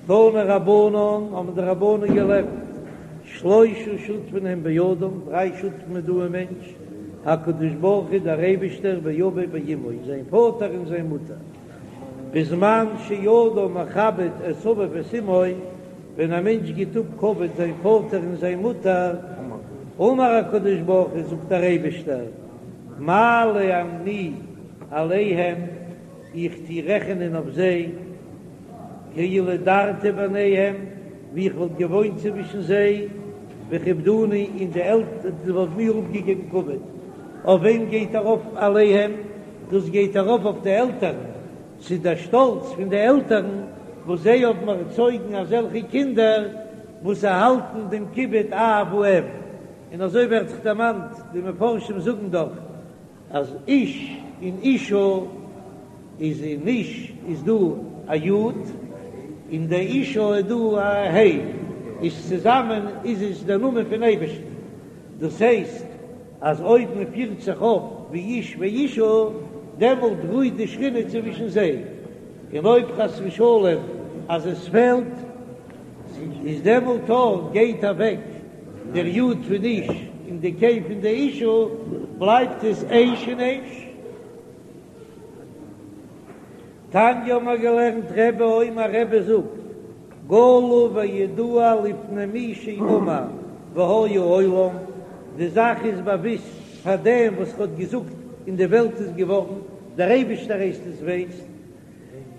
תנו רבנן, האבן די רבנן געלערנט, שלושה שותפין הן באדם, דריי שותפים איז דא אין מענטש, הקדוש ברוך הוא דער אייבישטער ואביו ואמו, זיין פאטער און זיין מוטער, בזמן שאדם מכבד את אביו ואת אמו, ווען א מענטש גיט אפ כבוד זיין פאטער און זיין מוטער, אמר הקדוש ברוך הוא, זאגט דער אייבישטער, מעלה אני עליהם, איך טו רעכענען אויף זיי, כאילו דרתי ביניהם, ווי איך וואלט געוואוינט צווישן זיי, וכיבדוני, און די עלטערן וואלטן מיר אפגעגעבן כבוד. אויף וועם גייט ארויף עליהם? דאס גייט ארויף אויף די עלטערן, ס'איז דער שטאלץ פון די עלטערן וואס זיי האבן ערצויגן אזעלכע קינדער וואס האלטן דעם כיבוד אב ואם, און אזוי ווערט זיך דערמאנט, די מפרשים זאגן דאך אז איש און אישה איז אין איש איז דא א י' און די אישה איז דא א ה', איז צוזאמען איז עס דער נאמען פון אייבערשטן, דאס הייסט אז אויב מען פירט זיך אויף ווי איש ואישה דעמאלט רוהט די שכינה צווישן זיי, און אויב חס ושלום אז עס פעלט איז דעמאלט אויך גייט אוועק דער י' פון איש און די ה' פון די אישה, בלייבט עס אש און אש. תניא האבן מיר געלערנט רבי אומר רבי זאגט גלוי וידוע לפני מי שאמר והיה העולם, די זאך איז באוויסט פאר דעם וואס האט געזאגט און די וועלט איז געווארן, דער אייבישטער הייסט עס ווייסט,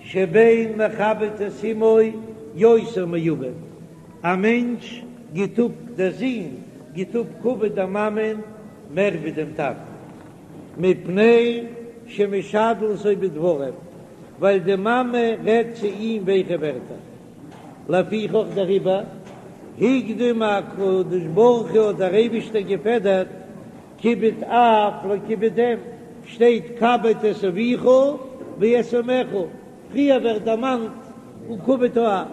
שבן מכבד את אמו יותר מאביו, א מענטש גיט אפ דער זון גיט אפ כבוד דער מאמען מער ווי דעם טאטן. מפני שמשדלתו בדברים, ווייל די מאמע רעדט צו אים ווייכע ווערטער. לפיכך דעריבער הקדים הקדוש ברוך הוא האט דער אייבישטער געפעדערט כיבוד אב לכיבוד אם, שטייט כבד את אביך ואת אמך, פריער ווערט דערמאנט כיבוד האב.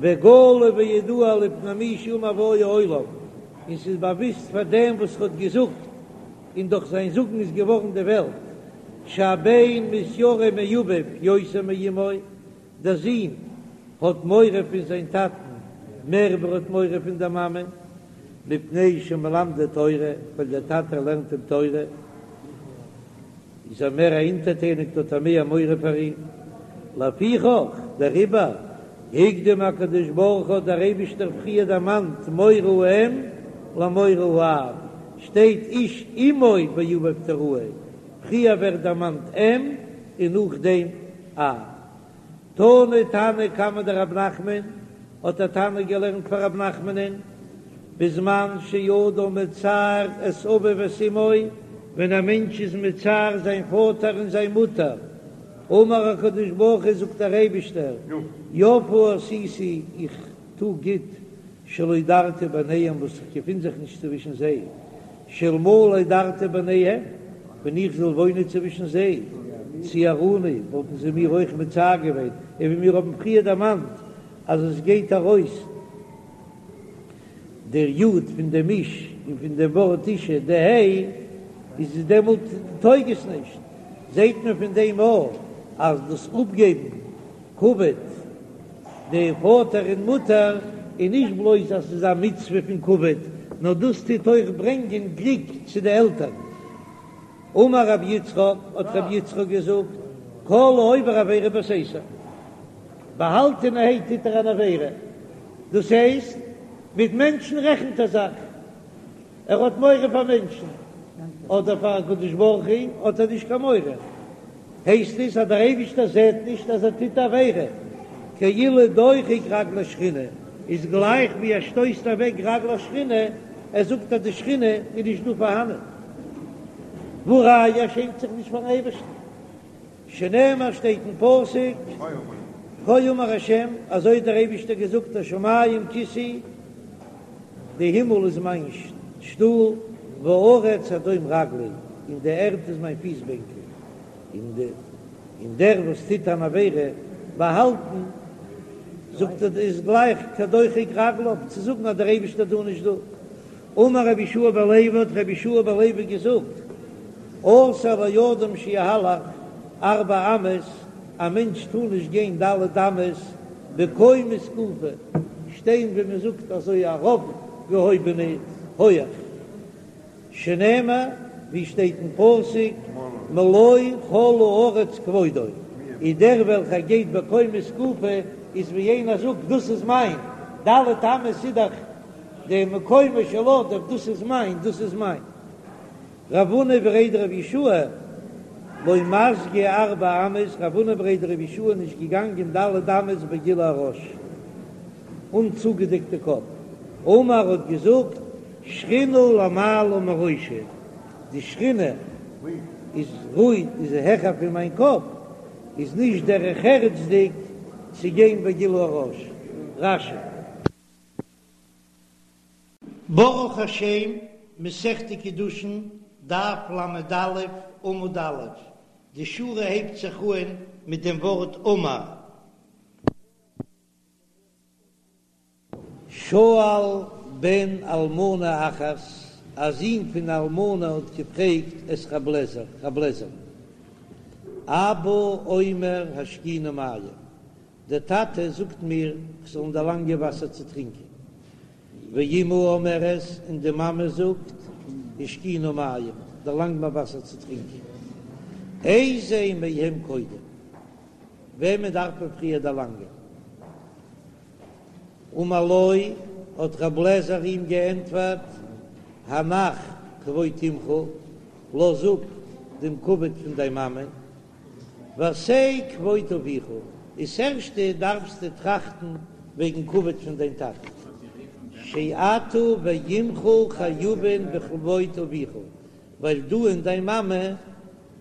וגלוי וידוע לפני מי שאמר והיה העולם, און ס'איז באוויסט פאר דעם וואס האט געזאגט, און דורך זיין זאגן איז געווארן די וועלט, שהבן מתיירא מאביו יותר מאמו, דער זון האט מורא פון זיין טאטן מער ווי ער האט מורא פון דער מאמע, מפני שמלמדו תורה, ווייל דער טאטע לערנט אים תורה. איז ער מער אונטערטעניגט האט ער מער מורא פאר אים, לפיכך דעריבער הקדים הקדוש ברוך הוא האט דער אייבישטער פריער דערמאנט מורא האם למורא האב, שטייט איש אמו ואביו תיראו, פריער ווערט דערמאנט אם און נאכדעם אב. תני תנא קמיה דרב נחמן, האט א תנא געלערנט פאר רב נחמנ'ן, בזמן שאדם מצער את אביו ואת אמו, ווען א מענטש איז מצער זיין פאטער און זיין מוטער, אמר הקדוש ברוך הוא זאגט דער אייבישטער, יפה עשיתי, איך טו גוט, שלא דרתי ביניהם וואס איך געפין זיך נישט צווישן זיי, שאלמלא דרתי ביניהם, ווען איך זאל וואוינען צווישן זיי, ציערוני, וואלטן זיי מיר אויך מצער געווען, און ווי מיר האבן פריער דערמאנט אז עס גייט ארויס דער יוד פון דעם איש און פון דעם ווארט אישה די ה', איז עס דעמאלט טויג עס נישט, זעט מען פון דעם אויך אז דאס אפגעבן כבוד די פאטער און מוטער איז נישט בלויז אז ס'איז א מצוה פון כבוד, נאר דאס טוט אויך ברענגען גליק צו די עלטערן. אמר רבי יצחק, האט רבי יצחק געזאגט, כל העובר עבירה בסתר, באהאלטענערהייט טוט ער אן עבירה, דאס הייסט, מיט מענטשן רעכנט ער זיך, ער האט מורא פאר מענטשן, אבער פאר הקדוש ברוך הוא האט ער נישט קיין מורא, הייסט עס אז דער אייבישטער זעט נישט אז ער טוט עבירה, כאילו דוחק רגלי שכינה, איז גלייך ווי ער שטויסט אוועק רגלי שכינה, ער זאגט אז די שכינה איז נישט דא פארהאנען, והא ראיה ער שעמט זיך נישט פארן אייבערשטן. שנאמר שטייט אין פסוק, כה אמר השם, אזוי האט דער אייבישטער געזאגט, השמים כסאי, די הימל איז מיין שטול, והארץ הדום רגלי, און די ערד איז מיין פיס בענקל, און דער וואס טוט אן עבירה באהאלטן, זאגט ער איז גלייך כדוחק רגליו, צו זאגן אז דער אייבישטער איז דא נישט דא. אמר רבי יהושע בן לוי האט רבי יהושע בן לוי געזאגט, אסור לאדם שיהלך ארבע אמות, א מענטש טאר נישט גיין ד' אמות. בקומה זקופה, שטיין ווי מען זאגט אזוי ארויפגעהויבענע הויעך, שנאמר ווי שטייט אין פסוק מלא כל הארץ כבודו, איז דער וועלכער גייט בקומה זקופה איז ווי איינער זאגט דאס איז מיין, ד' אמות איז דאך די מקומו של אדם, דאס איז מיין, דאס איז מיין. רב הונא בריה דרב יהושע לא מסגי ארבע אמות, רב הונא בריה דרב יהושע איז נישט געגאנגען ד' אמות בגילוי הראש, אן צוגעדעקטע קאפ, אמר האט געזאגט שכינה למעלה מראשי, די שכינה איז רואיג איז העכער פון מיין קאפ, איז נישט דרך ארץ'דיג צו גיין בגילוי הראש. רש"י. ברוך השם, מסכת קידושין, דף ל"א, עמוד א', די שורה הייבט זיך אהן מיט דעם ווארט אמר. שאל בן אלמנה אחת, א זון פון אלמנה האט געפרעגט את רב לעזר, רב לעזער, אבא אומר השקיני מים, דער טאטע זאגט מיר כ'זאל אים דערלאנגען וואסער צו טרינקען, ואמא אומרת, און די מאמע זאגט, השקיני מים, דערלאנג מיר וואסער צו טרינקען. איזה מהם קודם, וועמען דארף מען פריער דערלאנגען? אמר לו, האט רב לעזער אים געענטפערט, הנח כבוד אמך, לאז אפ דעם כבוד פון דיין מאמע, ועשה כבוד אביך, איז ערשטע דארפסטו טראכטן וועגן כבוד פון דיין טאטע, שאתה ואמך חייבין בכבוד אביך, ווייל דו און דיין מאמע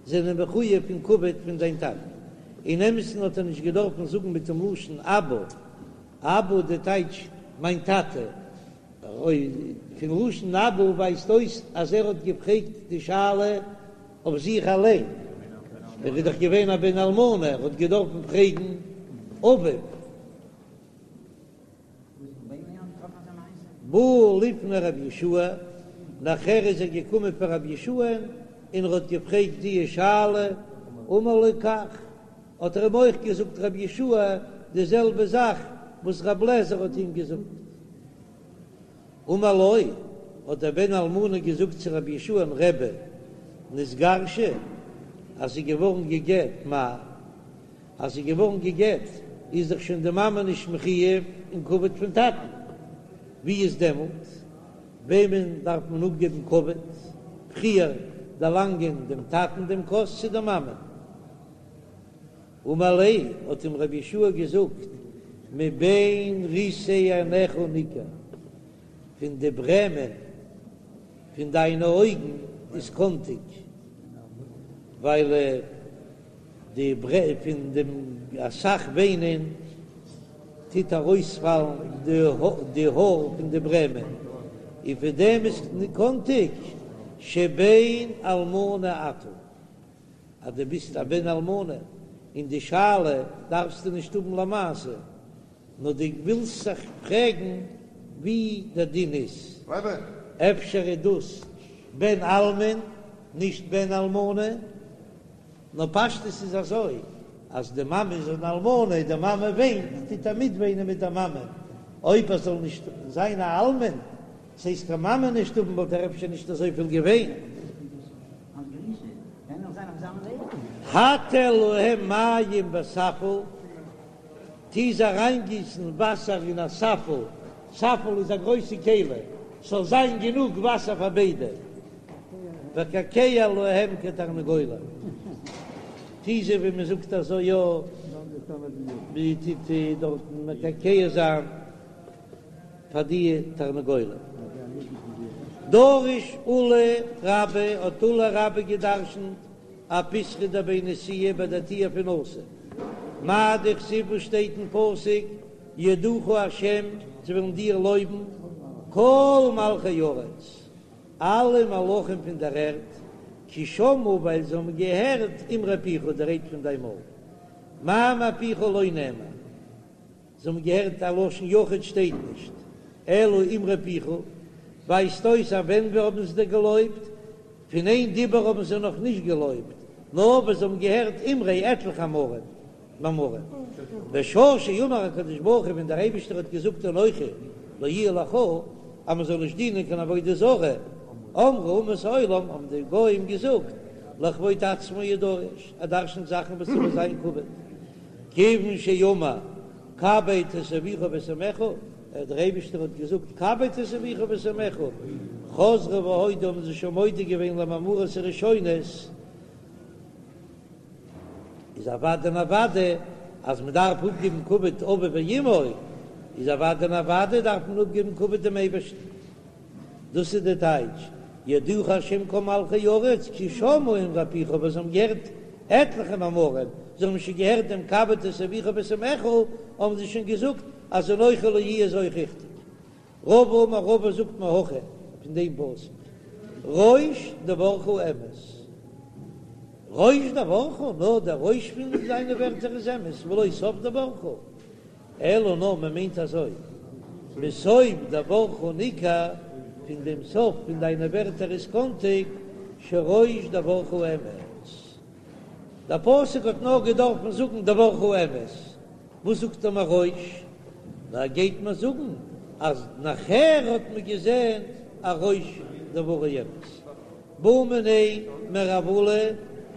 זענען מחויב פון כבוד פון דיין טאטן. אין אמת'ן האט ער נישט געדארפן זאגן מיט דעם לשון אבא, אבא די טייטש מיין טאטע, פון לשון אבא ווייזט אויס אז ער האט געפרעגט די שאלה אויף זיך אליין, ער איז דאך געווען א בן אלמנה, ער האט געדארפן פרעגן אביו. בא לפני רבי יהושע, נאכער איז ער געקומען פאר רבי יהושע'ן און ער האט געפרעגט די שאלה, אמר לו כך, האט ער אים אויך געזאגט רבי יהושע די זעלבע זאך וואס רבי אליעזר האט אים געזאגט. אמר לו, האט דער בן אלמנה געזאגט צו רבי יהושע'ן, רבי, נתגרשה, אז זי איז געווארן גע'גט, מהו, אז זי איז געווארן גע'גט, איז דאך שוין די מאמע נישט מחויב אין כבוד פון טאטן, ווי איז דעמאלט, וועמען דארף מען אפגעבן כבוד, פריער דערלאנגען דעם טאטן דעם כוס צו די מאמע? אמר ליה, האט אים רבי יהושע געזאגט, מבין ריסי עיניך ניכר, פון די ברעמען פון דיינע אויגן איז קאנטיג, ווייל די פון דעם אסאך וויינען טוט ארויספאלן די האר פון די ברעמען, און פון דעם איז קאנטיג שבן אלמנה אתה. אז דו ביסט א בן אלמנה און די שאלה דארפסטו נישט האבן למעשה, נאר דו ווילסט זיך פרעגן ווי דער דין איז, אפשר איז דאס בן אלמן נישט בן אלמנה, נאר פשטות איז אזוי אז די מאמע איז אן אלמנה, די מאמע וויינט, טוט ער מיטוויינען מיט דער מאמע, אויב ער זאל נישט זיין א אלמן, ס'הייסט קיין מאמע נישט האבן וואלט ער אפשר נישט אזויפיל געוויינט. הטל להם מים בספל, טו זיי אריינגיסן וואסער אין א ספל, ספל איז א גרויסע כלי, ס'זאל זיין גענוג וואסער פאר ביידע, וקעקע להם כתרנגולים, טו זיי ווי מען זאגט אזוי יא, מען טוט דארטן מקעקע זיין. פאר די תרנגולים. דרש עולא רבה האט עולא רבה געדרשנט אפיתחא דבי נשיאה ביי די טיר פון נשיא. מאי דכתיב וואס שטייט אין פסוק יודוך ה' זיי וועלן דיר לויבן כל מלכי ארץ אלע מלכים פון דער ערד כי שמעו ווייל זיי האבן געהערט אמרי פיך די רייד פון דיין מויל מאמר פיך לא נאמר. זיי האבן געהערט א לשון יחיד שטייט נישט, אלא אמרי פיך, ווייזט אויס אז ווען ווי האבן זיי דיר געלויבט? פון איין דיבור האבן זיי נאך נישט געלויבט, נאר ווען זיי האבן געהערט אמרי עטליכע אמרים. מאמרים. בשעה שאמר הקדוש ברוך הוא ווען דער אייבישטער האט געזאגט אנכי לא יהיה לך אז מען זאל נישט דינען קיין עבודה זרה, אמרו אומות העולם האבן די גוים געזאגט לכבוד עצמו הוא דורש, ער דרשנ'ט זאכן וואס איבער זיין כבוד, כיוון שאמר כבד את אביך ואת אמך, דער אייבישטער האט געזאגט כבד את אביך ואת אמך, חזרו והודו האבן זיי שוין מודה געווען למאמרות הראשונות, איז אוודאי און אוודאי אז מען דארף אפגעבן כבוד אביו ואמו, איז אוודאי און אוודאי דארף מען אפגעבן כבוד דעם אייבערשטן. דאס איז די טייטש, יודוך השם כל מלכי ארץ כי שמעו אמרי פיך, וואס זיי האבן געהערט עטליכע מאמרים, זיי האבן שוין געהערט דעם כבד את אביך ואת אמך, האבן זיי שוין געזאגט אז אנכי לא יהיה איז אויך ריכטיג. רבא אמר רבא זאגט מהכא פון דעם פסוק ראש דברך אמת, ראש דברך, נאר דער ראש פון זיינע ווערטער איז אמת, ולא סוף דברך, אלא נאר מען מיינט אזוי, מסוף דברך ניכר, פון דעם סוף פון דיינע ווערטער איז קאנטיג, שראש דברך אמת. דער פסוק האט נאר געדארפן זאגן דברך אמת, וואס זאגט ער מיר ראש? נאר גייט מען זאגן אז נאכער האט מען געזען אז ראש דברו אמת. בעו מיניה מרב עולא,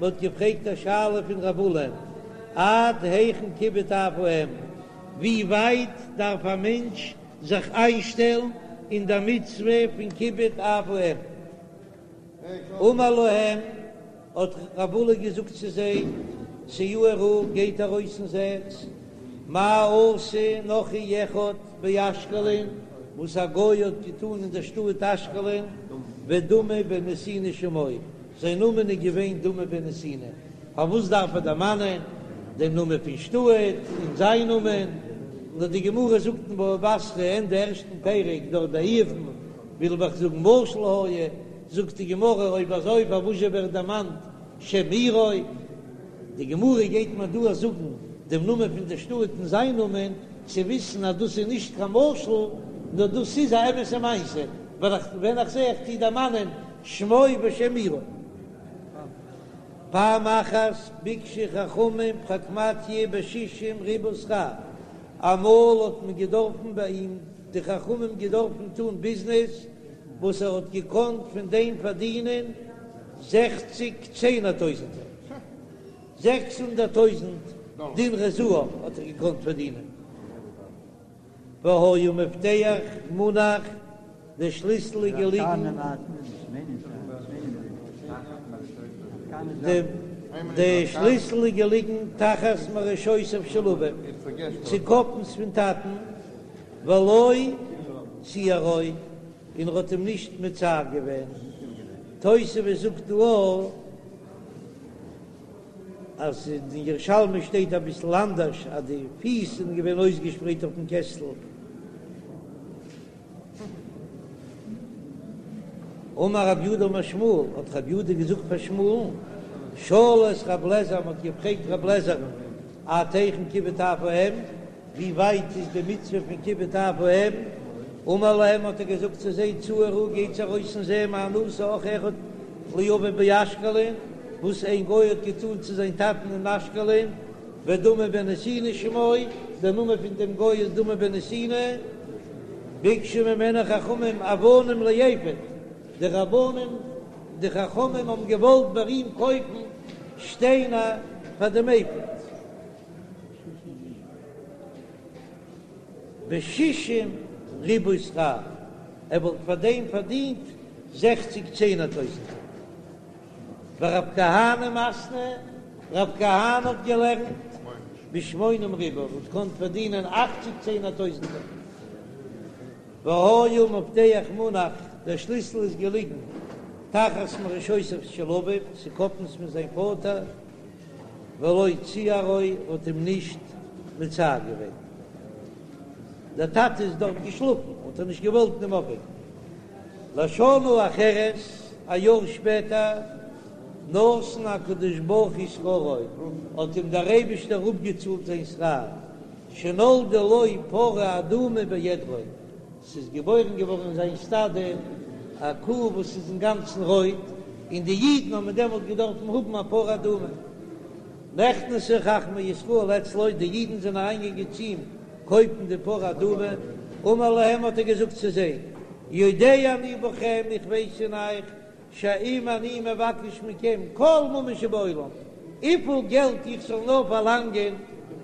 מען האט געפרעגט א שאלה פון רב עולא, עד היכן כיבוד אב ואם, ווי ווייט דארף א מענטש זיך איינשטעלן אין דער מצוה פון כיבוד אב ואם? אמר להם, האט רב עולא געזאגט צו זיי, צאו וראו, גייט ארויס און זעט, מה עשה נכרי אחד באשקלון, וואס א גוי האט געטאן אין דער שטאט אשקלון, ודמא בן נתינה שמו, זיין נאמען איז געווען דמא בן נתינה, פארוואס דארף ער דערמאנען דעם נאמען פון שטאט און זיין נאמען? נאר די גמרא זאגט אין בבא בתרא ענדע ערשטן פרק דארט ביי איוב'ן, וויל איך זאגן משל היה, זאגט די גמרא אויב אזוי פארוואזשע ווערט דערמאנט שם עירו? די גמרא גייט מיר דא זאגן דעם נאמען פון די שטאט און זיין נאמען, צו וויסן אז דאס איז נישט קיין משל, נאר דאס איז א אמת'ע מעשה, ווייל איך ווען איך זע איך טו דערמאנען שמו ושם עירו. פעם אחת ביקשו חכמים פרקמטיא בשישים ריבוא שכר, אמאל האט מען געדארפן ביי אים די חכמים געדארפן טון ביזנעס וואס ער האט געקאנט פון דעם פארדינען זעכציג צענער טויזענטער, 600 טויזנט דינרי זהב האט ער געקאנט פארדינען. והיה מפתח מונח, דער שליסל איז געליגן, די שליסל איז געליגן תחת מראשותיו של אביו, צוקאפנס פון טאטן, ולא ציערו, און ער האט אים נישט מצער געווען. תוספות זאגט דא אז אין ירושלמי שטייט אביסל אנדערש אז די פיס זענען געווען אויסגעשפרייט אויפן קעסטל. אמר רב יהודה אמר שמואל, האט רב יהודה געזאגט פאר שמואל'ן, שאלו את רב לעזער, מען האט געפרעגט רב לעזער'ן, עד היכן כיבוד אב ואם, ווי ווייט איז די מצוה פון כיבוד אב ואם, אמר להם האט ער געזאגט צו זיי, צאו וראו, גייטס ארויס און זען מה עשה נכרי אחד לאביו באשקלון, וואס איין גוי האט געטאן צו זיין טאטן אין אשקלון, ודמא בן נתינה שמו, דער נאמען פון דעם גוי איז דמא בן נתינה, ביקשו ממנו חכמים אבנים לאפוד, די רבנים, די חכמים האבן געוואלט ביי אים קויפן שטיינער פאר דעם אפוד. בשישים ריבוא שכר, ער וואלט פאר דעם פארדינט זעכציג צענער טויזענטער. ורב כהנא מתני, רב כהנא האט געלערנט בשמונים ריבוא, וואלט געקאנט פארדינען אכציג צענער טויזענטער. והיה מפתח מונח, דער שליסל איז געליגן תחת מראשותיו של אביו, צוקאפנס פון זיין פאטער. ולא ציערו האט אים נישט מצער געווען, דער טאטע איז דארט געשלאפן האט ער נישט געוואלט אים אויפוועקן. לשנה אחרת, א יאר שפעטער, נתן הקדוש ברוך הוא שכרו, האט אים דער אייבישטער אפגעצאלט זיין שכר, שנולדה לו פרה אדומה בעדרו, ס'איז געבוירן געווארן אין זיין סטאדע א קו וואס איז אינגאנצן רויט, און די אידן האבן דעמאלט געדארפן האבן א פרה אדומה. נכנסו חכמי ישראל אצלו, די אידן זענען אריינגעגאנגען צו אים קויפן די פרה אדומה, אמר להם האט ער געזאגט צו זיי, יודע אני בכם, איך ווייס אין אייך, שאם אני מבקש מכם כל ממון שבעולם, וויפיל געלט איך זאל נאר פארלאנגען,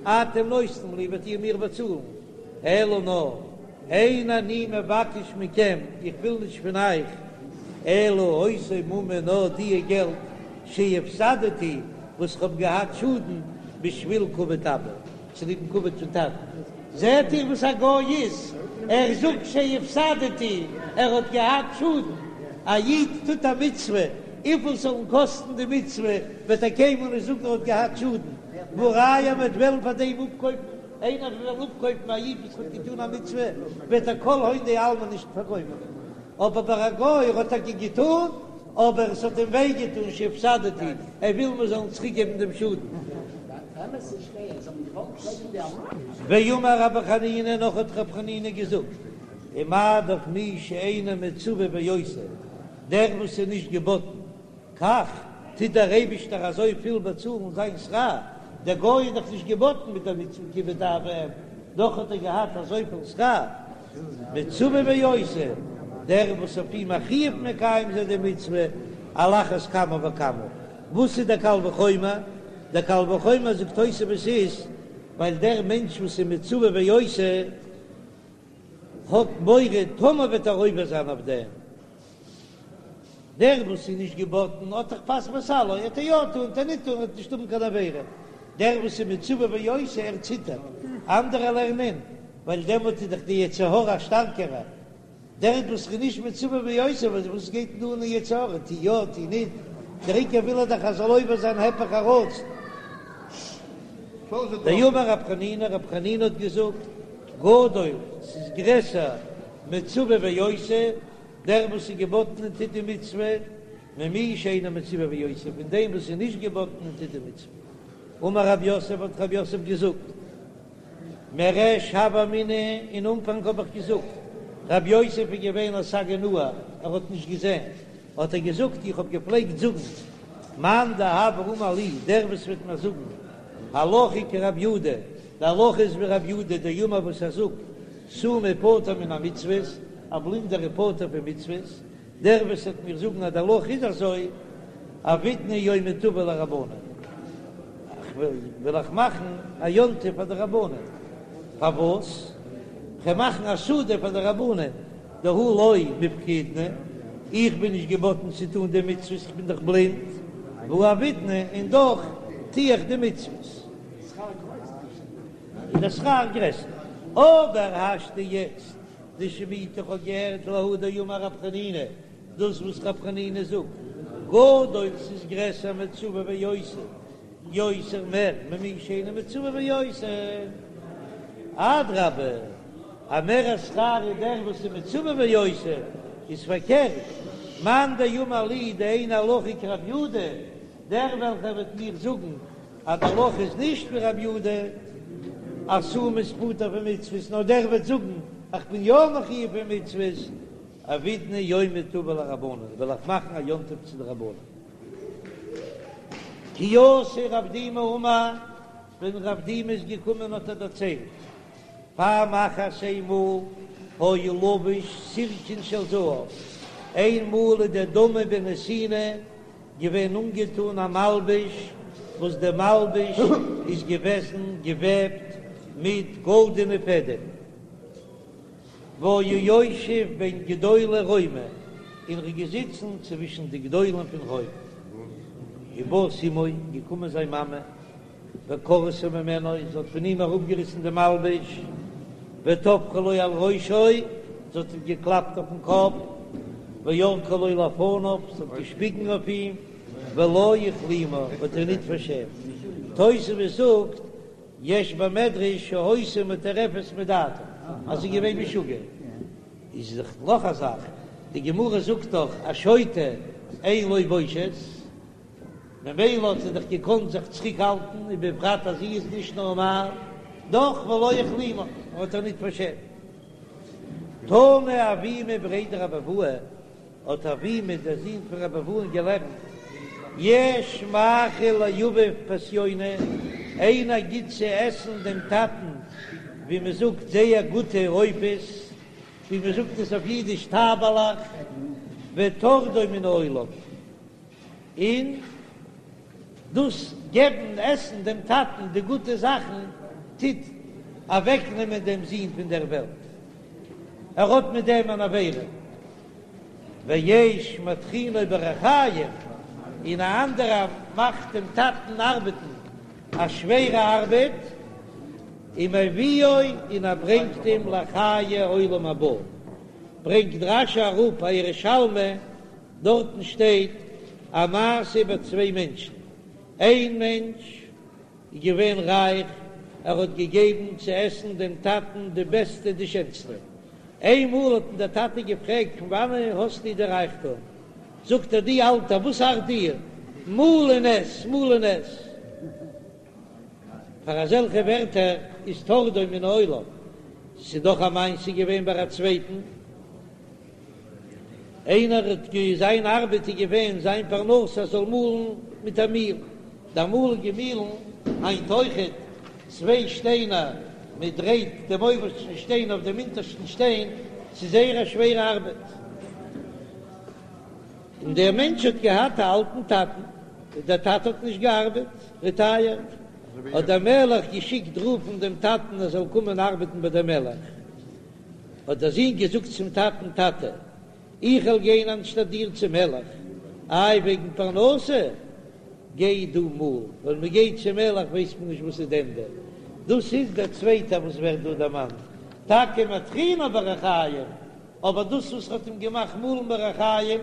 אתם נותנים לי, וועט איר מיר באצאלן, אלא נאר, אין אני מבקש מכם, איך וויל נישט פון אייך, אלא אותו ממון נאר דיע געלט שהפסדתי, וואס כ'האב געהאט שאדן, בשביל כבוד אבא, צוליבן כבוד פון טאטן. זעט איר וואס א גוי איז? ער זאגט שהפסדתי, ער האט געהאט שאדן. א איד טוט א מצוה, וויפיל ס'זאל אים קאסטן די מצוה, וועט ער קיינמאל נישט זאגן ער האט געהאט שאדן. והא ראיה מ'וועט וועלן פאר דעם אפקויפן, איינער וועט וועלן אפקויפן א איד וואס האט געטון א מצוה, וועט ער כל הון דעלמא נישט פארקויפן. אבער ביי א גוי ער האט טאקע געטון, אבער עס האט אים וויי געטון שהפסדתי, ער וויל מיר זאלן צוריק געבן דעם שאדן. ואמר רבי חנינא, נאך האט רבי חנינא געזאגט, ומה דאך מי שאינו מצווה ועושה, דער וואס איז נישט געבאטן, כך טוט דער אייבישטער אזוי פיל באצאלן זיין שכר, דער גוי איז דאך נישט געבאטן מיט דער מצוה כיבוד אב ואם, דאך האט ער געהאט אזויפיל שכר, מצווה ועושה, דער וואס אויף אים א חיוב מקיים זיין די מצוה, על אחת כמה וכמה. וואס איז דער קל וחומר? דער קל וחומר זאגט תוספות איז, ווייל דער מענטש וואס איז מצווה ועושה האט מורא טאמער וועט ער עובר זיין אויף דעם, דער וואס איז נישט געבאטן האט דאך פת בסלו, עט ער יא טון עט ער ניט טון וועט נישט האבן קיין עבירה, דער וואס איז מצווה ועושה ער ציטערט, אנדערע לערנען ווייל דעמאלט איז דאך די יצר הרע א שטארקערע, דער וואס איז נישט מצווה ועושה וואס גייט אים אן די יצר הרע, טו יא טו ניט, דער עיקר וויל ער דאך ער זאל עובר זיין היפך הרצון. דאמר רב חנינא, רב חנינא האט געזאגט, גדול, ס'איז גרעסער מצווה ועושה, דער וואס איז געבאטן און טוט די מצוה, ממי שאינו מצווה ועושה, פון דעם וואס איז נישט געבאטן און טוט די מצוה. אמר רב יוסף, האט רב יוסף געזאגט, מריש הוה אמינא, אין אנפאנג האב איך געזאגט, רב יוסף איז געווען א סגי נהור, ער האט נישט געזען, האט ער געזאגט, איך האב געפלעגט זאגן, מאן דהוה אמר לי, דער וואס וועט מיר זאגן, הלכה כרב יהודה, די הלכה איז ווי רב יהודה דאמר וואס ער זאגט, סומא פטור מן המצוות, א בלינדער איז פטור פון מצוות, דער וואס וועט מיר זאגן אז די הלכה איז אזוי, עבידנא יומא טבא לרבנן, וועל איך מאכן א יום טוב פאר די רבנן, פארוואס? כ'וועל מאכן א סעודה פאר די רבנן, דהא לא מפקדנא, איך בין נישט געבאטן צו טון די מצוות, איך בין דאך בלינד, והא עבידנא, און דאך טו איך די מצוות. איז דער שכר גרעסער. אבער השתא יעצט דשמעיתא איך האב געהערט להא דאמר רב חנינא, דאס וואס רב חנינא זאגט, גדול ס'איז גרעסער מצווה ועושה, יותר מער ממי שאינו מצווה ועושה, אדרבה א מערער שכר איז דער וואס איז מצווה ועושה, איז פארקערט, מאן דאמר לי דאין הלכה כרב יהודה, דער וועלכער וועט מיר זאגן אז די הלכה איז נישט ווי רב יהודה אז סומא איז פטור פון מצוות, נאר דער וועט זאגן איך בין יא מחויב פון מצוות, עבידנא יומא טבא לרבנן, וועל איך מאכן א יום טוב צו די רבנן. כי אתא רב דימי אמר, ווען רב דימי איז געקומען האט ער דערציילט, פעם אחת איינמאל היה לבוש סירקון של זהב, איינמאל איז דער דמי בן נתינה געווען אנגעטון א מלבוש וואס די מלבוש איז געוועזן געוועבט מיט גאלדענע פעדעם, והיה יושב בין גדולי רומי, און ער איז געזיצן צווישן די גדולים פון רוים, ובאת אמו, געקומען זיין מאמע. וקרעתו ממנו, זי האט פון אים אראפגעריסן די מלבוש, וטפחה לו על ראשו, זי האט אים געקלאפט אויפן קאפ, וירקה לו לפניו, זי האט געשפיגן אויף אים, ולא הכלימה, האט איר ניט פארשעמט. תוספות זאגט, יש במדרש שהיתה מטורפת מדעתה, אז זי איז געווען משוגע. איז דאך נאך א זאך, די גמרא זאגט דאך א שוטה אין לו בושת, ממילא האט זי דאך געקאנט זיך צוריק האלטן, ובפרט אז זי איז נישט נארמאל, דאך ולא הכלימה, האט איר ניט פארשעמט. תנא אבימי בריה דרב אבוה, האט אבימי דער זון פון רב אבוה'ן געלערנט. יש מאכיל לאביו פסיוני, איינער גיט צו עסן דעם טאטן ווי מען זאגט זייער גוטע עופות, ווי מען זאגט עס אויף אידיש טייבעלעך, וטורדו מן העולם, און דאס געבן עסן דעם טאטן די גוטע זאכן טוט אוועקנעמען דעם זון פון דער וועלט, ער האט מיט דעם אן עבירה. ויש מטחינו בריחים, און א אנדערער מאכט דעם טאטן ארבעטן א שווערע ארבעט, ומביאו און ער ברענגט אים לחיי עולם הבא, ברענגט רש"י אראפ א ירושלמי, דארטן שטייט א מעשה איבער צוויי מענטשן, איין מענטש איז געווען רייך, ער האט געגעבן צו עסן דעם טאטן די בעסטע די שענסטע, איינמאל האט אים דער טאטע געפרעגט פון וואנען האסטו די רייכטום, זאגט ער דו אלטער וואס ארט דיר, מאל און עס, מאל און עס. פאר אזעלכע ווערטער איז טורדו מן העולם, ס'איז דאך א מעשה געווען ביי א צווייטן. איינער האט גע זיין ארבעט איז געווען זיין פרנסה זאל מאלן מיט א מיל, די אמאליגע מילן, היינט אויכעט, צוויי שטיינער, מען דרייט דעם אויבערשטן שטיין אויף דעם אונטערשטן שטיין, ס'איז זייער א שווערע ארבעט. און דער מענטש האט געהאט א אלטן טאטן, דער טאטע האט נישט געארבעט, רעטייערט, האט דער מלך געשיקט רופן דעם טאטן ער זאל קומען ארבעטן ביי דעם מלך. האט דער זון געזאגט צום טאטן, טאטע, איך וועל גיין אנשטאט דיר צום מלך, איי וועגן פרנסה, גיי דו מאל, ווען מען גייט צום מלך ווייסט מען נישט וואס איז די ענדע. דאס איז דער צווייטער וואס ווערט דא דערמאנט, טאקע מטחינו בריחים, אבער דאס וואס האט אים געמאכט מאלן בריחים,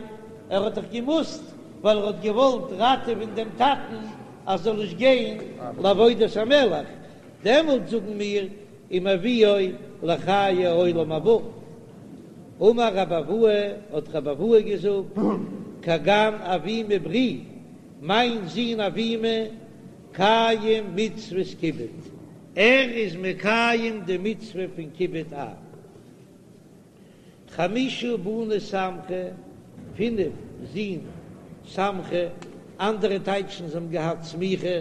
ער האט דאך געמוזט, ווייל ער האט געוואלט ראטעווען דעם טאטן אז זאל נישט גיין לעבודת המלך, דעמאלט זאגן מיר ומביאו לחיי עולם הבא. אמר רבי אבהו, האט רבי אבהו געזאגט, כגון אבימי ברי, מיין זון אבימי, קיים מצוות כיבוד, ער איז מקיים די מצוה פון כיבוד אב. חמשה בני סמכי, פינף זין סמכי, אנדערע טייטשן זיי האבן געהאט סמיכה,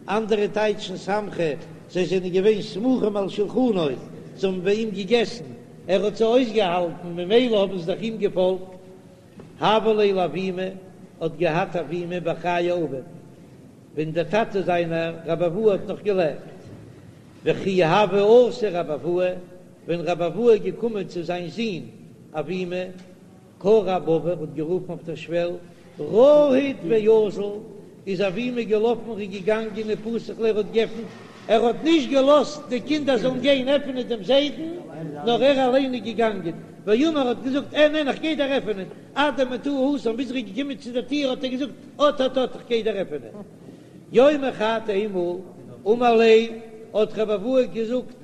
אנדערע טייטשן סמכי, זיי זענען געווען סמוכים על שלחנו, זיי האבן ביי אים געגעסן, ער האט זיי אויסגעהאלטן, ממילא האבן זיי דאך אים געפאלגט. הוה ליה לאבימי, האט געהאט אבימי בחיי אביו, ווען דער טאטע זיינער רבי אבהו האט נאך געלעבט, וכי הוה אתי רבי אבהו, ווען רבי אבהו איז געקומען צו זיין זון אבימי, קרא אבבא, האט גערופן אויף דער שוועל, רהיט ואזיל, איז אבימי געלאפן און געגאנגען ופתח ליה, ער האט געעפנט, ער האט נישט געלאזט די קינדער זאלן גיין עפענען דעם זיידן, נאר ער אליין איז געגאנגען, ואמר האט געזאגט, אין אין איך גיי דיר עפענען, עד דמטאי התם, ביז ער איז געקומען צו דער טיר האט ער געזאגט, אט אט אט איך גיי דיר עפענען. יומא חד איינמאל, אמר ליה, האט רבי אבהו געזאגט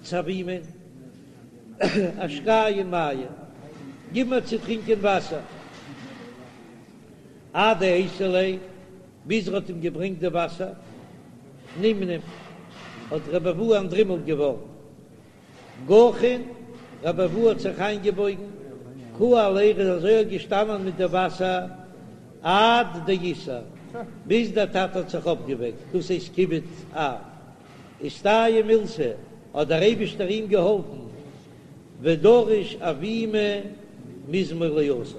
צו אבימי, אשקיין מיא, גיב מיר צו טרינקען וואסער. אדאייתי ליה, ביז ער האט אים געברענגט די וואסער, נמנם, האט רבי אבהו אנטדרימלט געווארן. גחין, רבי אבהו האט זיך איינגעבויגן, קאי עליה, ער איז אזוי געשטאנען מיט די וואסער עד דאיתער, ביז דער טאטע האט זיך אויפגעוועקט, דאס הייסט כיבוד אב. אסתייעא מילתא, האט דער אייבישטער אים געהאלפן, ודרש אבימי מזמור לאסף.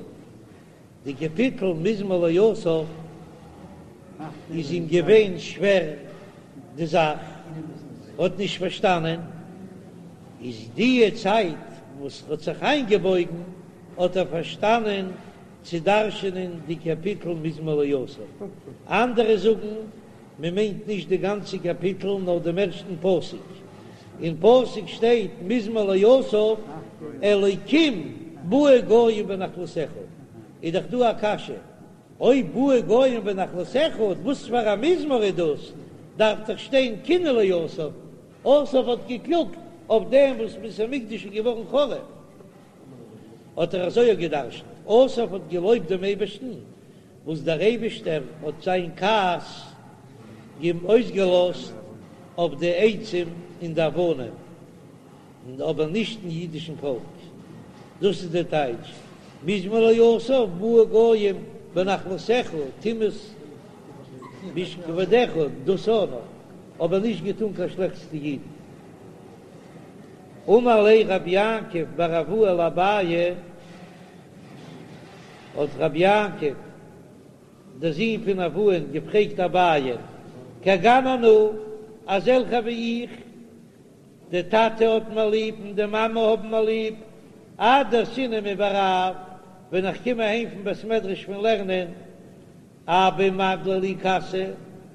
די קאפיטל מזמור לאסף איז אים געווען שווער די זאך, האט נישט פארשטאנען, איז די צייט וואס ער האט זיך איינגעבויגן האט ער פארשטאנען צו דרש'ענען די קאפיטל מזמור לאסף, אנדערע זאגן מען מיינט נישט די גאנצע קאפיטל נאר דעם ערשטן פסוק, אין פסוק שטייט מזמור לאסף אלוקים באו גוים בנחלתך, איז דאך דא א קשיא, אויב באו גוים בנחלתך וואס פאר א מזמור איז דאס, דארף דאך שטיין קינה לאסף, אסף האט געקלאגט אויף דעם וואס בית המקדש איז געווארן חרוב, האט ער אזוי געדרשנט, אסף האט געלויבט דעם אייבערשטן וואס דער אייבישטער האט זיין כעס אים אויסגעלאזט אויף די עצים און די אבנים, אבער נישט אין אידישן פאלק. דאס איז דער טייטש, מזמור לאסף באו גוים. בנחלתך תמאס באיש כבודך, דאס אויך נאך, אבער נישט געטון קיין שלעכטס צו אידן. אמר ליה רב יעקב בר אבוה לאביי, האט רב יעקב דער זון פון אבוה'ן געפרעגט אביי, כגון אנא, אזעלכע ווי איך, די טאטע האט מיר ליב און די מאמע האבן מיר ליב, עד דאתינא מבי רב, ווען איך קום אהיים פון בית מדרש פון לערנען, אבא מגלי לי כסא,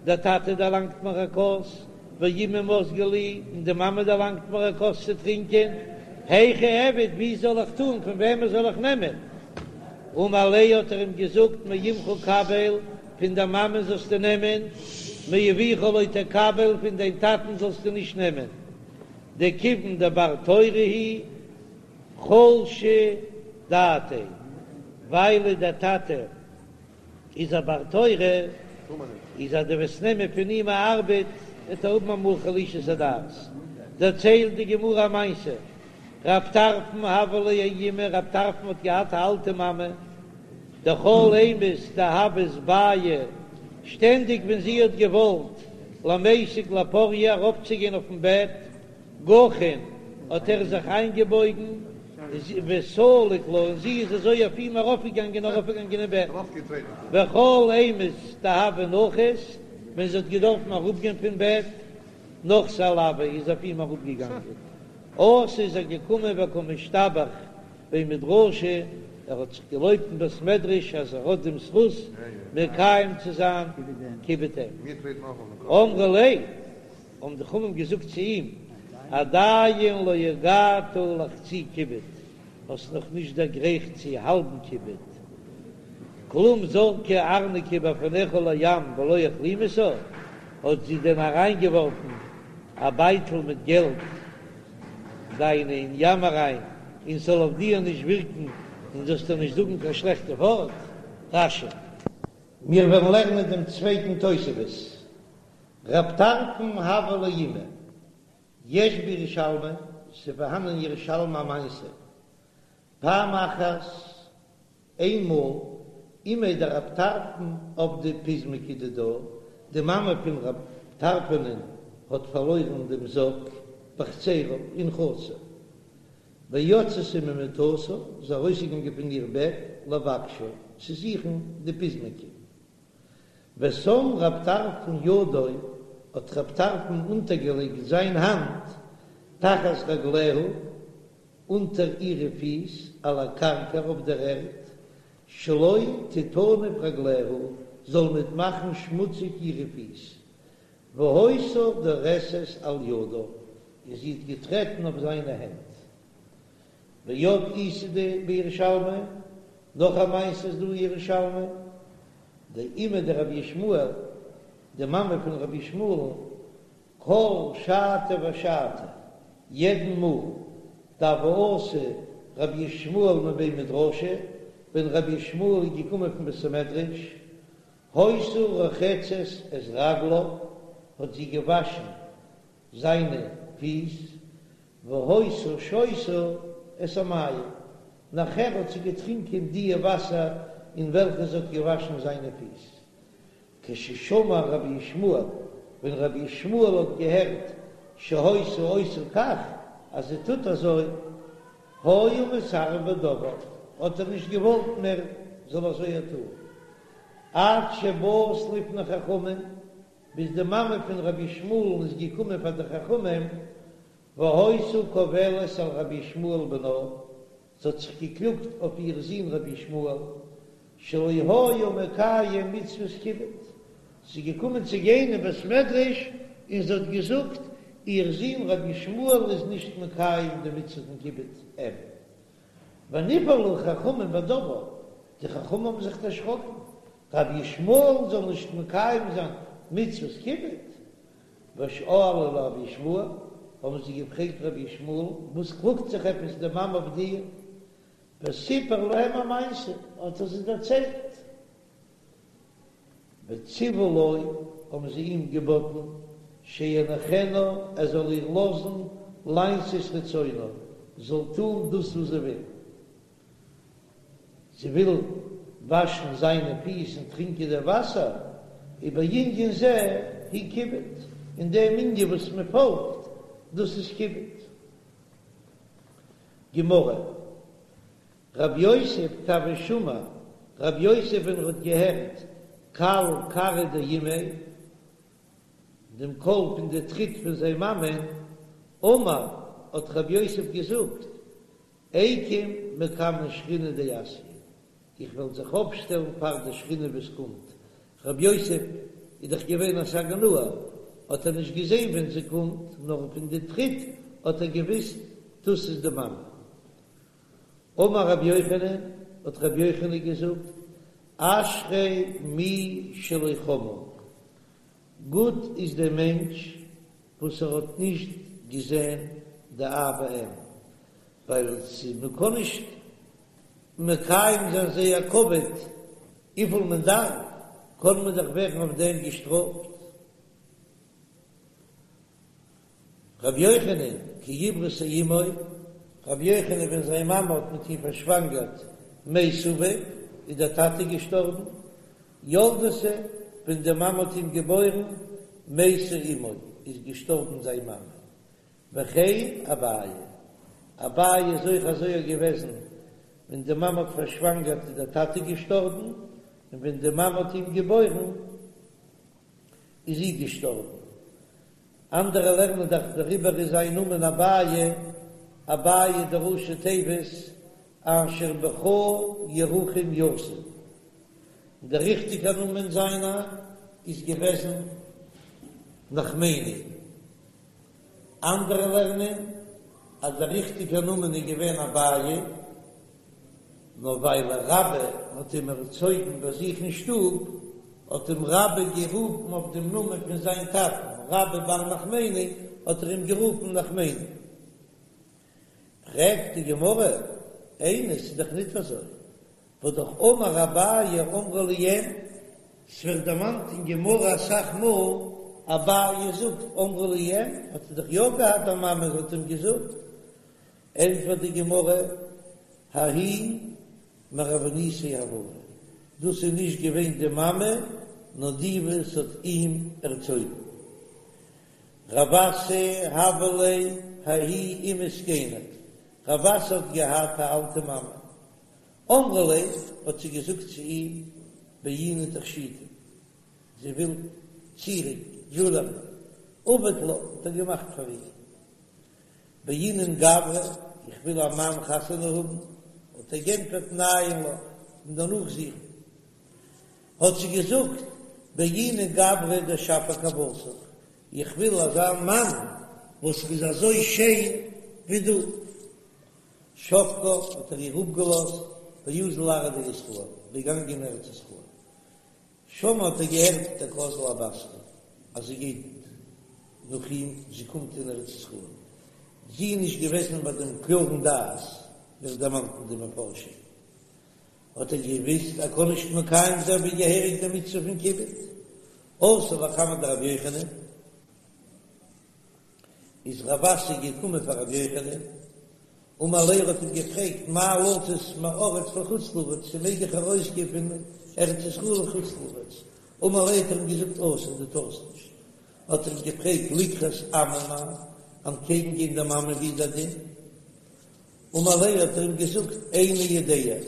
דער טאטע דערלאנגט מיר א כוס, ואימא מזגה לי, און די מאמע דערלאנגט מיר א כוס צו טרינקען, היכי איעביד, ווי זאל איך טאן, פון וועמען זאל איך נעמען? אמר ליה האט ער אים געזאגט, מאמך קבל, פון דיין מאמען זאלסטו נעמען, מאביך לא תקבל, פון דיין טאטן זאלסטו נישט נעמען, דכיון דבר תורה הוא חלשא דעתיה, ווייל דער טאטע איז א בר תורה, איז אז דו וועסט נעמען פון אים א ארבעט, וועט ער האבן אמאל חלישות הדעת. דערציילט די גמרא א מעשה, רב טרפון הוה ליה האימא, רב טרפון האט געהאט א אלטע מאמע, דכל אימת דהוות בעיא, שטענדיג ווען זי האט געוואלט למיסק לפוריא ארויפצוגיין אויפן בעט, גחין, האט ער זיך איינגעבויגן, וסליק לה, און זי איז אזוי אויף אים ארויפגעגאנגען ארויפגעגאנגען אין בעט, וכל אימת דהוה נחית, ווען זי האט געדארפן אראפגיין פון בעט, נחתה עלויה, איז אויף אים אראפגעגאנגען. אתא איז ער געקומען וקא משתבח בי מדרשא, ער האט זיך געלויבט אין בית מדרש אז ער האט דעם זכות מקיים צו זיין כיבוד אם. אמרו ליה, האבן די חכמים געזאגט צו אים, עדיין לא הגעת לחצי כיבוד, האסט נאך נישט דערגרייכט צו האלבן כיבוד, כלום זרקה ארנקי בפניך לים ולא הכלימתה, האט זי דען אריינגעווארפן א בייטל מיט געלט דיינע אין ים אריין, און ס'זאל אויף דיר נישט ווירקן און זאלסט איר נישט זאגן קיין שלעכטע ווארט? רש"י. מיר וועלן לערנען דעם צווייטן תוספות, רב טרפון הוה ליה אימא, יש בירושלמי, ס'פארהאן אין ירושלמי א מעשה, פעם אחת, איינמאל, אימיה דרב טרפון איבדה פזמקי דידה, די מאמע פון רב טרפונ'ען האט פארלוירן דעם זאק בחצרה אין חצר, ויצתה ממיטתה, איז ארויסגעגאנגען פון איר בעט לבקשה, צו זוכן די פזמקי. ושם רב טרפון ידו, האט רב טרפון אונטערגעלייגט זיין האנט תחת רגליה, אונטער אירע פיס, על הקרקע אויף דער ערד, שלא תטנף רגליה, זאל ניט מאכן שמוציג אירע פיס, והיתה דורסת על ידיו, און זי האט געטרעטן אויף זיינע הענט. ועוד איתא בירושלמי, נאך א מעשה איז דא אין ירושלמי, דאימיה דרבי ישמעאל, די מאמע פון רבי ישמעאל'ן, כל שעתא ושעתא, יעדן מאל, דהוה אתי רבי ישמעאל מבי מדרשא, ווען רבי ישמעאל איז געקומען פון בית המדרש, היתה רוחצת את רגליו, האט זי געוואשן זיינע פיס, והיתה שותה את המים, נאכער האט זי געטרינקען דיע וואסער אין וועלכע זי האט געוואשן זיינע פיס. כששמע רבי ישמעאל, ווען רבי ישמעאל האט געהערט שהיתה עושה כך, אז זי טוט אזוי, היה מתערב בדבר, האט ער נישט געוואלט מער זאל אזוי טון, עד שבאת לפני חכמים, ביז די מאמע פון רבי ישמעאל'ן איז געקומען פאר די חכמים, והיתה קובלת על רבי ישמעאל בנה, זי האט זיך געקלאגט אויף איר זון רבי ישמעאל, שלא היה מקיים מצוות כיבוד, זי איז געקומען צו גיין אין בית מדרש און זי האט געזאגט, איר זון רבי ישמעאל איז נישט מקיים די מצוה פון כיבוד אם. ונבהלו חכמים בדבר, די חכמים האבן זיך דערשראקן, רבי ישמעאל זאל נישט מקיים זיין מצוות כיבוד, ושאלו לרבי ישמעאל, האבן זיי געפרעגט רבי ישמעאל, וואס קלאגט זיך עפעס די מאמע אויף דיר? וסיפר להם המעשה, האט ער זיי דערציילט. וציוו לו, האבן זיי אים געבאטן, שיניחנה, ער זאל איר לאזן לעשות רצונה, זאל טון דאס וואס זי וויל. זי וויל. וואשן זיינע פיס און טרינקען די וואסער, ובענין זה הוא כיבוד, אין דעם ענין וואס מען פאלגט, דאס איז כיבוד. גמרא, רב יוסף כי הוה שמע, רב יוסף ווען ער האט געהערט קל כרעא דאימיה, דעם קול פון די טריט פון זיין מאמען, אמר, האט רב יוסף געזאגט, איקום מקמי שכינה דאתיא, איך וועל זיך אויפשטעלן פאר די שכינה וואס קומט, רב יוסף איז דאך געווען א סגי נהור, האט ער נישט געזען ווען זי קומט, נאר פון די טריט האט ער געוויסט דאס איז די מאמע. אמר רבי יוחנן, האט רבי יוחנן געזאגט, אשרי מי שלא חמאן, גוט איז דער מענטש וואס ער האט נישט געזען די אב ואם, ווייל מען קען נישט מקיים זיין זייער כבוד וויפיל מען דארף, קען מען דאך ווערן אויף דעם געשטראפט. רבי יוחנן, כי עברתו אמו, רבי יוחנן ווען זיין מאמע האט מיט אים פארשוואנגערט מת אביו, איז דער טאטע געשטארבן, ילדתו, ווען די מאמע האט אים געבוירן, מתה אמו, איז געשטארבן זיין מאמע. וכן אביי, אביי איז אויך אזוי געוועזן, ווען די מאמע האט פארשוואנגערט איז דער טאטע געשטארבן, און ווען די מאמע האט אים געבוירן איז זי געשטארבן. אנדערע לערנען דאך דעריבער איז זיין נאמען אביי, אביי די ראשי תיבות אשר בך ירחם יתום. דער ריכטיגער נאמען זיינער איז געוועזן נחמני. אנדערע לערנען אז דער ריכטיגער נאמען איז געווען אביי, נאר ווייל רבה האט אים ערצויגן ביי זיך אין שטוב, האט אים רבה גערופן אויף דעם נאמען פון זיין טאטן, רבה בר נחמני, האט ער אים גערופן נחמני. פרעגט די גמרא, איני, ס'איז דאך ניט אזוי, והא דאך אמר אביי אמרה לי אם, ס'ווערט דערמאנט אין גמרא אסאך מאל, אביי זאגט אמרה לי אם, האט ער דאך יא געהאט א מאמע וואס האט אים געזאגט, ענטפערט די גמרא, ההיא מרבינתיה הואי, דאס איז נישט געווען די מאמע, נאר די וואס האט אים ערצויגן. רב אסי הוה ליה ההיא אימא זקנה, רב אסי האט געהאט א אלטע מאמע, אמרה ליה, האט זי געזאגט צו אים, בעינא תכשיטא, זי וויל צירונג, דזשולערי, עבד לה, האט ער געמאכט פאר איר, בעינא גברא, איך וויל א מאן חתונה האבן, האט ער גענטפערט ניין לך, און דערנאך זוכן. האט זי געזאגט, בעינא גברא דשפיר כוותך, איך וויל אזא מאן וואס איז אזוי שיין ווי דו. שבקה, האט ער איר אפגעלאזט, ואזל לארעא דישראל, געגאנגען אין ארץ ישראל. שמע האט ער געהערט דקאזלה בתריה, אז זי גייט נאך אים, זי קומט אין ארץ ישראל. זי איז נישט געוועזן ביי דעם קלארן דעת, ווערט דערמאנט אין די מפרשים. האט ער געוויסט ער קען נישט מקיים זיין ווי געהעריג די מצוה פון כיבוד. אתא לקמיה דרבי יוחנן, איז רב אסי געקומען פאר רבי יוחנן, אמר ליה האט אים געפרעגט מהו לצאת מארץ לחוץ לארץ, צו מעג איך ארויסגיין פון ארץ ישראל לחוץ לארץ, אמר ליה האט ער אים געזאגט אסור דו טארסט נישט, האט ער אים געפרעגט לקראת אמה מהו, אנטקעגן גיין די מאמע ווי איז דער דין, אמר ליה האט ער אים געזאגט איני יודע,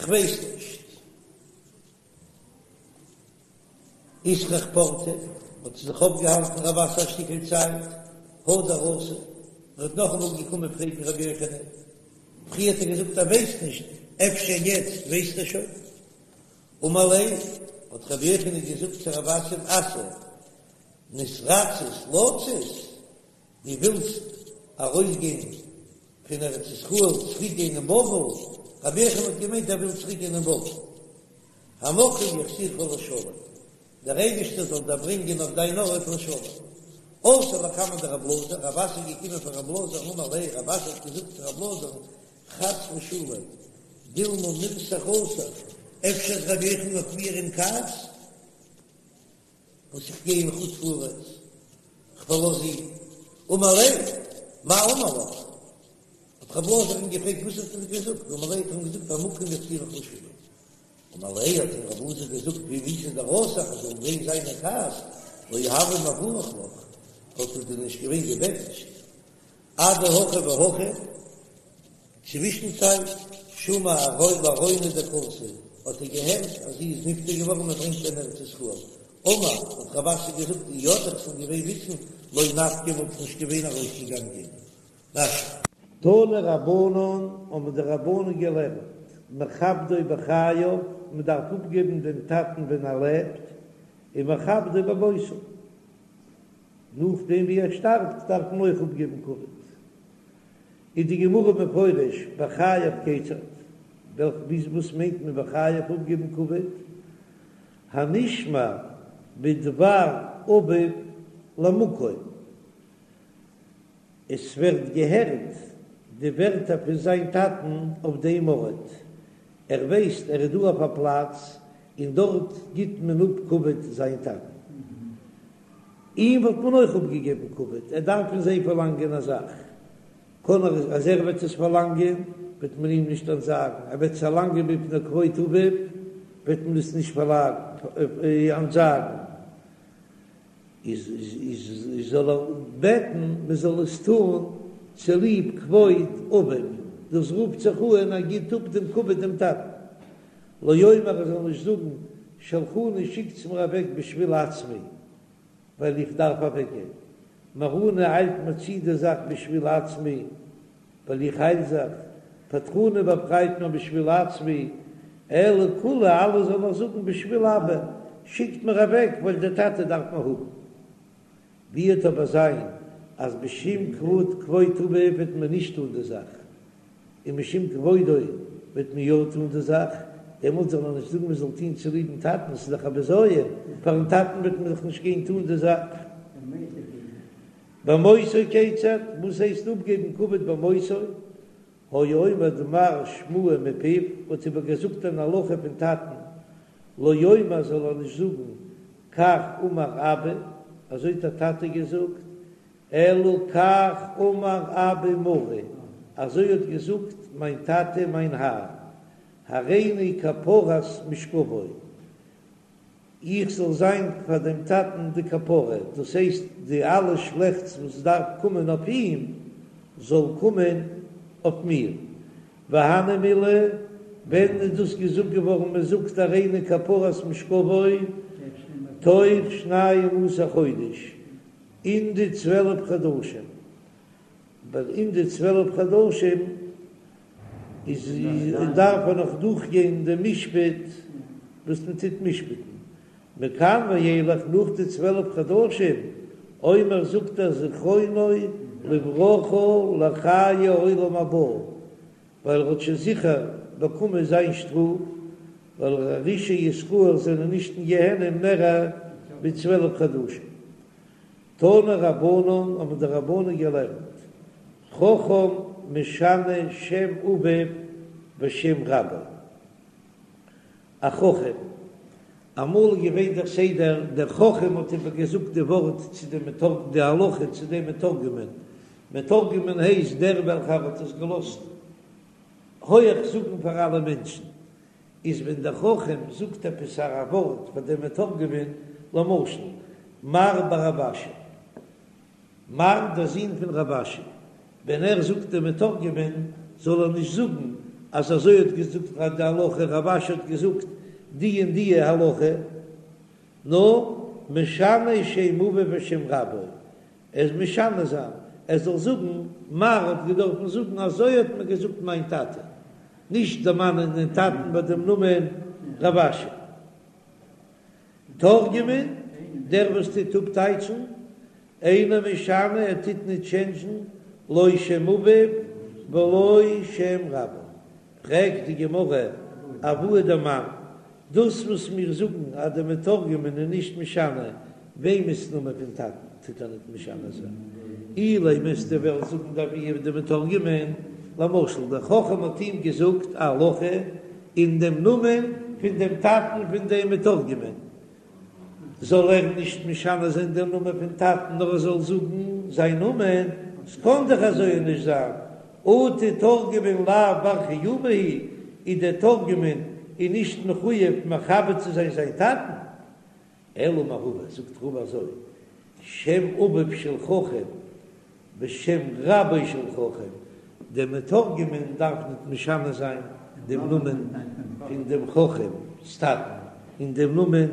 כ'ווייס נישט. אתרח פורתא, האט זיך אויפגעהאלטן רב אסי א שטיקל צייט, הדר אתא, ער האט נאכאמאל געקומען פרעגן רבי יוחנן, פריער האט ער געזאגט ער ווייסט נישט, אפשר יעצט ווייסט ער שוין? אמר ליה, האט רבי יוחנן געזאגט צו רב אסי, אסי, נתרצית לצאת, דו ווילסט ארויסגיין פון ארץ ישראל צוריק גיין אין בבל, רבי יוחנן האט געמיינט ער וויל צוריק גיין אין בבל, המקום יחזירך לשלום, דער אייבערשטער זאל דיר ברענגען אויף דיין ארט לשלום. אתא לקמיה דרב אלעזר, רב אסי איז געקומען פאר רב אלעזר, אמר ליה, רב אסי האט געזאגט צו רב אלעזר, חס ושלום, דילמא מירתח אסח, אפשר איז רבי יוחנן אויף מיר אין כעס? וואס איך גיי אין חוץ לארץ, כ'פארלאז אים, אמר ליה, מאי אמר לך? האט רב אלעזר אים געפרעגט וואס האט ער דיר געזאגט, אמר ליה האט ער אים געזאגט המקום יחזירך לשלו. אמר ליה האט אים רב אלעזר געזאגט ואם איתא דרתח אז זאל געווען זיין אין כעס לא הוה מברך לך וואלט ער דיר נישט געווען געבענטשט אדהכי והכי צווישן צייט שמע לארונא דקאתי האט ער געהערט אז זי איז נפטר געווארן מען ברענגט איר אין ארץ ישראל אמר האט רב אסי געזאגט אי ידעי איך זאל געווען וויסן לא נפקי וואלט איך נישט געווען ארויסגעגאנגען. רש"י. תנו רבנן האבן די רבנן געלערנט, מכבדו בחייו, מען דארף אפגעבן דעם טאטן ווען ער לעבט, און מכבדו במותו, נאכדעם ווי ער שטארבט דארף מען אויך אפגעבן כבוד. איז די גמרא מפרש בחייו כיצד, וואס מיינט מען בחייו אפגעבן כבוד? הנשמע בדבר אביו למקום. עס ווערט געהערט די ווערטער פון זיין טאטן אויף דעם ארט, ער ווייסט ער איז דא אויף א פלאץ און דארט גיט מען אפ כבוד זיין טאטן, אים וואלט מען אויך אפגעגעבן כבוד, ער דארף פון זיי פארלאנגען א זאך, קען ער אז ער וועט עס פארלאנגען וועט מען אים נישט אנטזאגן, ער וועט עס פארלאנגען מפני כבוד אביו וועט מען עס נישט אנטזאגן. איז איז זאל ער בעטן מען זאל עס טון צוליב כבוד אביו, דאס רופט זיך אן ער גיט אפ דעם כבוד דעם טאטן, לא יאמר ער זאל נישט זאגן שלחוני שיקטס מיר אוועק בשביל עצמי ווייל איך דארף אוועק גיין, מהרוני איילט מיר צו די זאך בשביל עצמי ווייל איך אייל זיך, פטרוני באפרייט מיר בשביל עצמי, אלא כולהו אלע זאל ער זאגן בשביל אבא, שיקט מיר אוועק ווייל דער טאטע דארף מיר האבן. ווי וועט אבער זיין אז משום כבוד כבוד אביו וועט מען נישט טון די זאך, און משום כבודו וועט מען יא טון די זאך, דעמאלט זאל ער נישט זאגן מען זאל טון צוליבן טאטן, ס'איז דאך א בזיון, פארן טאטן וועט מען דאך נישט גיין טון די זאך. במותו כיצד, וואס הייסט אפגעבן כבוד במותו? היה אומר דבר שמועה מפיו, האט איבער געזאגט אן הלכה פון טאטן, לא יאמר זאל ער נישט זאגן כך אמר אבא, אזוי האט דער טאטע געזאגט, אלא כך אמר אבא מרי, אזוי האט געזאגט מיין טאטע מיין האר, הריני כפרת משכבו, איך זאל זיין פאר דעם טאטן די כפרה, דאס הייסט די אלע שלעכטס וואס דארף קומען אויף אים, זאל קומען אויף מיר. והני מילי, ווען איז דאס געזאגט געווארן, מען זאגט הריני כפרת משכבו, תוך שנים עשר חודש, אין די צוועלף חדשים, ווייל אין די צוועלף חדשים איז דארף ער נאך דורכגיין דעם משפט וואס מען טוט משפט'ן, מכאן ואילך נאך די צוועלף חדשים, אומר זאגט ער זכרונו לברכה לחיי העולם הבא, ווייל ער האט שוין זיכער באקומען זיין שטראף, ווייל רשעי ישראל זענען נישט אין גיהנום מער ווי צוועלף חדשים. תנו רבנן האבן די רבנן געלערנט, חכם משנה שם אביו ושם רבו. א חכם, אמאל איז געווען דער סדר, דער חכם האט איבער געזאגט די ווארט צו דעם מתרגם, די הלכה צו דעם מתורגמן, מתורגמן הייסט דער וועלכער האט עס געלאזט הויעך זאגן פאר אלע מענטשן, איז ווען דער חכם זאגט עפעס א ווארט פאר דעם מתורגמן, למשל, מר בר רב אשי, מר דער זון פון רב אשי, ווען ער זאגט דעם מתורגמן, זאל ער נישט זאגן אז אזוי האט געזאגט די הלכה, רב אשי האט געזאגט די און די הלכה, נאר משנה שם אביו ושם רבו, ער איז משנה זיין, ער זאל זאגן, מר האט געדארפן זאגן אזוי האט מיר געזאגט מיין טאטע, נישט דערמאנען דעם טאטן ביי דעם נאמען רב אשי. תורגמן, דער וואס טוט אפטייטשן, אינו משנה, ער טוט ניט טשענדזשן, לא שם אביו ולא שם רבו. פרעגט די גמרא, אבוה דמאן, דאס וואס מיר זאגן אז דער מתורגמן איז נישט משנה וועמענס נאמען פון טאטן טוט ער ניט משנה זיין, אילימא וועסטו וועלן זאגן דאבוה דמתורגמן, למשל דער חכם האט אים געזאגט א הלכה אין דעם נאמען פון דעם טאטן פון דעם מתורגמן, זאל ער נישט משנה זיין דעם נאמען פון טאטן נאר ער זאל זאגן זיין נאמען, ס'קען דאך אזוי נישט זיין. אטו תורגמן לאו בר חיובא הוא, איז דער תורגמן איז נישט מחויב מכבד צו זיין זיין טאטן? אלא אמר רבא, זאגט רבא אזוי, שם אביו של חכם ושם רבו של חכם, דער מתורגמן דארף ניט משנה זיין דעם נאמען פון דעם חכם'ס טאטן און דעם נאמען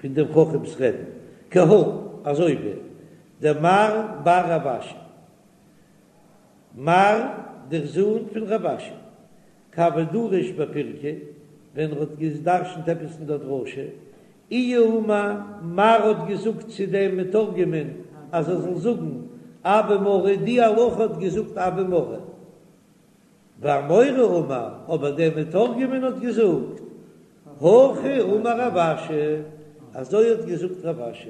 פון דעם חכם'ס רבי'ן, כי הא, אזוי ווי דמר בר רב אשי, מר דער זון פון רב אשי, כי הוה דריש בפירקא, ווען ער האט גע'דרש'נט עפעס אין דער דרשה, איהו אמר, מר האט געזאגט צו דעם מתורגמן אז ער זאל זאגן אבא מרי, די הלכה האט געזאגט אבא מרי. ואמורא אמר, אבער דער מתורגמן האט געזאגט, הכי אמר רב אשי, אזוי האט געזאגט רב אשי.